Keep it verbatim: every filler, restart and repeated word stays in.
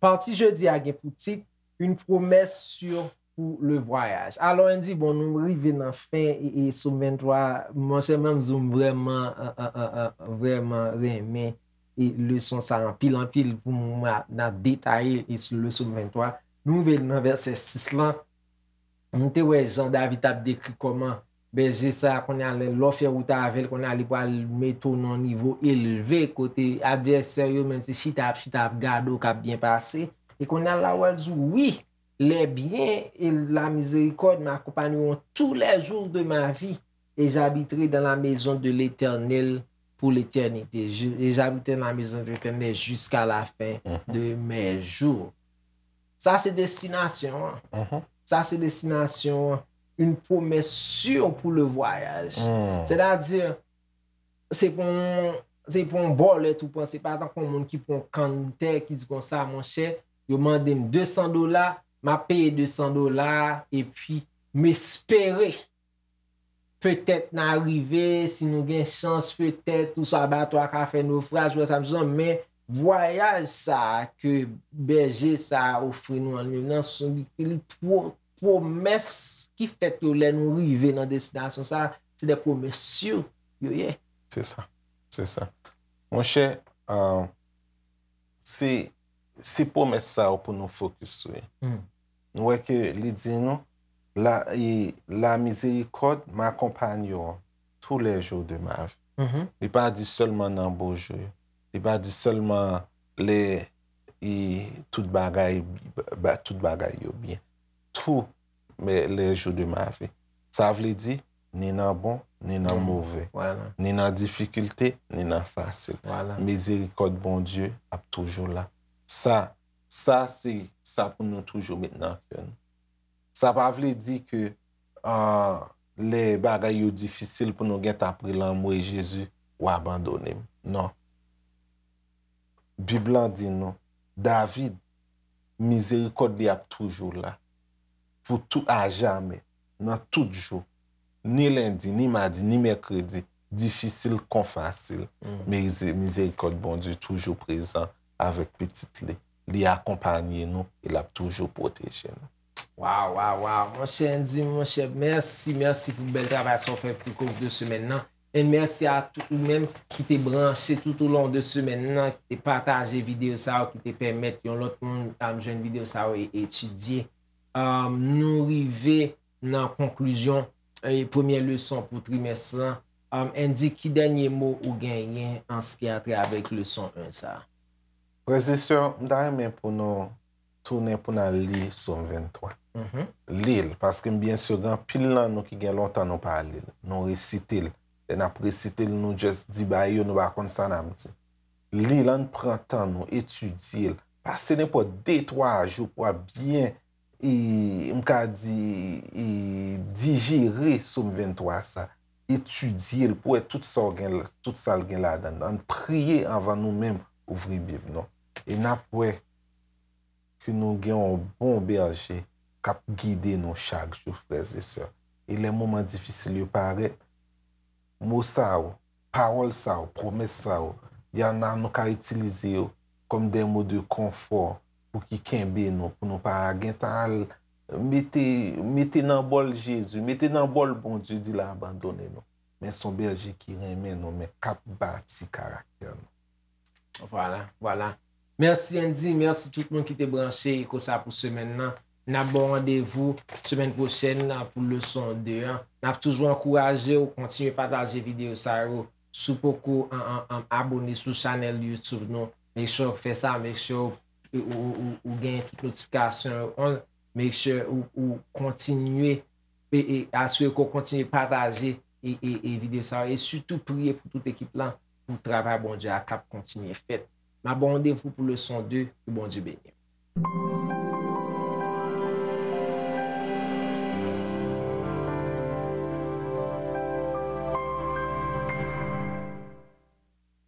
Pati jodi a gen pou tit Une promesse sûre pour le voyage. Alò, Andy, bon, nou rive nan fen e, e Sòm venntwa, monchè, mwen menm di w, m vrèman, an, an, an, an, vrèman renmen e leson sa anpil, anpil pou mwen, n ap detaye e sou le Sòm venntwa. Nou rive nan vèsè sis lan. Nou te wè jan David t ap dekri kòman bèje sa a, kounye a, lè, lè w fè wout avè l, kounye a, li pral mete w nan yon nivo elve, kote advèsè yo menm se chita ap, chita ap gade w k ap byen pase. E kounye a, la, w al di w, wi, les biens et la miséricorde m'accompagneront tous les jours de ma vie, et j'habiterai dans la maison de l'Éternel pour l'éternité. Je- Et j'habiterai dans la maison de l'Éternel jusqu'à la fin de mes jours. Sa se destinasyon an. Sa se destinasyon an. Une promesse sûre pour le voyage. Sètadi, se pou yon, se pou yon bòlèt ou pran, se pa tankou yon moun ki pran yon kann tè ki di konsa, monchè, yo mande m de san dola, m ap peye de san dola, epi m espere petèt n a rive, si nou gen chans, petèt, oswa bato a ka fè nofraj, ou wè sa m di w, men vwayaj sa a ke bèje sa a ofri nou an li menm nan, se li, li pwo-, pwomès ki fèt yo lè nou rive nan destinasyon sa a, se de pwomès si yo ye. Se sa. Se sa. Monchè, ah, se, se pwomès sa yo pou nou fokis sou yo. Nou wè ke li di nou, la, e, la miséricorde m'accompagnera tous les jours de ma vie. Li pa di sèlman nan bon jou yo. Li pa di sèlman lè e tout bagay, ba- tout bagay yo byen. Tou men les jours de ma vie. Sa vle di, ni nan bon, ni nan move, ni nan difikilte, ni nan fasil. Mizerikòd Bondye ap toujou la. Sa, sa se sa pou nou toujou met nan kè nou. Sa pa vle di ke, ah, lè bagay yo difisil pou nou gentan ap rele anmwe Jezi, ou abandone m. Non. Bib lan di nou, David, mizerikòd li ap toujou la. Pou tou, ajamè, nan tout jou. Ni lendi, ni madi, ni mèkredi, difisil kon fasil. Mize- mizerikòd Bondye toujou prezan avèk pitit li. Li akonpanye nou e l ap toujou pwoteje nou. Waw, waw, waw. Monchè Andy, monchè, mèsi, mèsi pou bèl travay sa w fè pou koz de semèn nan. E mèsi a tout ou menm ki te branche tout au long de semèn nan, ki te pataje videyo sa yo, ki te pèmèt yon lòt moun, um, jwenn videyo sa yo e etidye. Um, nou rive nan konklizyon, e, premyè leson pou trimès lan. Um, Andy, ki dènye mo ou genyen an ce qui a trait avèk leson en sa a? Frè e sè, m ta renmen pou nou tounen pou n al li Sòm venntwa. Li l, paske m byen si gen anpil nan nou ki gen lontan nou pa li l. Nou resite l. Lè n ap resite l, nou just di bagay yo, nou pa konn sa n ap di. Li l, ann pran tan nou, etidye l. Pase nenpòt de, twa jou pou w ap byen, e, m ka di, e, dijere Sòm venntwa sa. Etidye l pou w wè tout sa w gen, tout sa l gen ladan l. Ann priye anvan nou menm ouvri Bib nou. E n ap wè ke nou gen yon bon bèje k ap gide nou chak jou, frè e sè. E lè moman difisil yo parèt, mo sa yo, pawòl sa yo, pwomès sa yo, y en a nou ka itilize yo kòm de mo de konfò pou ki kenbe nou, pou nou pa gentan al mete, mete nan bòl Jezi, mete nan bòl Bondye, di l abandone nou. Men se yon bèje ki renmen nou, men k ap bati karaktè nou. Vwala, vwala. Mèsi Andy, mèsi tout moun ki te branche e konsa pou semèn nan. N ap ba w randevou semèn pwochèn pou leson de an. N ap toujou ankouraje w kontinye pataje videyo sa yo. Si w poko an, an, an, abone sou chanèl YouTube nou, make sure w fè sa, make sure w, ou, ou, ou, ou gen tout notifikasyon yo on, make sure ou, ou kontinye e, e asire ke w kontinye pataje e, e, e videyo sa yo, e sitou priye pou tout ekip lan, pou travay Bondye a k ap kontinye fèt. N ap ba w randevou pou leson de, ke Bondye beni w.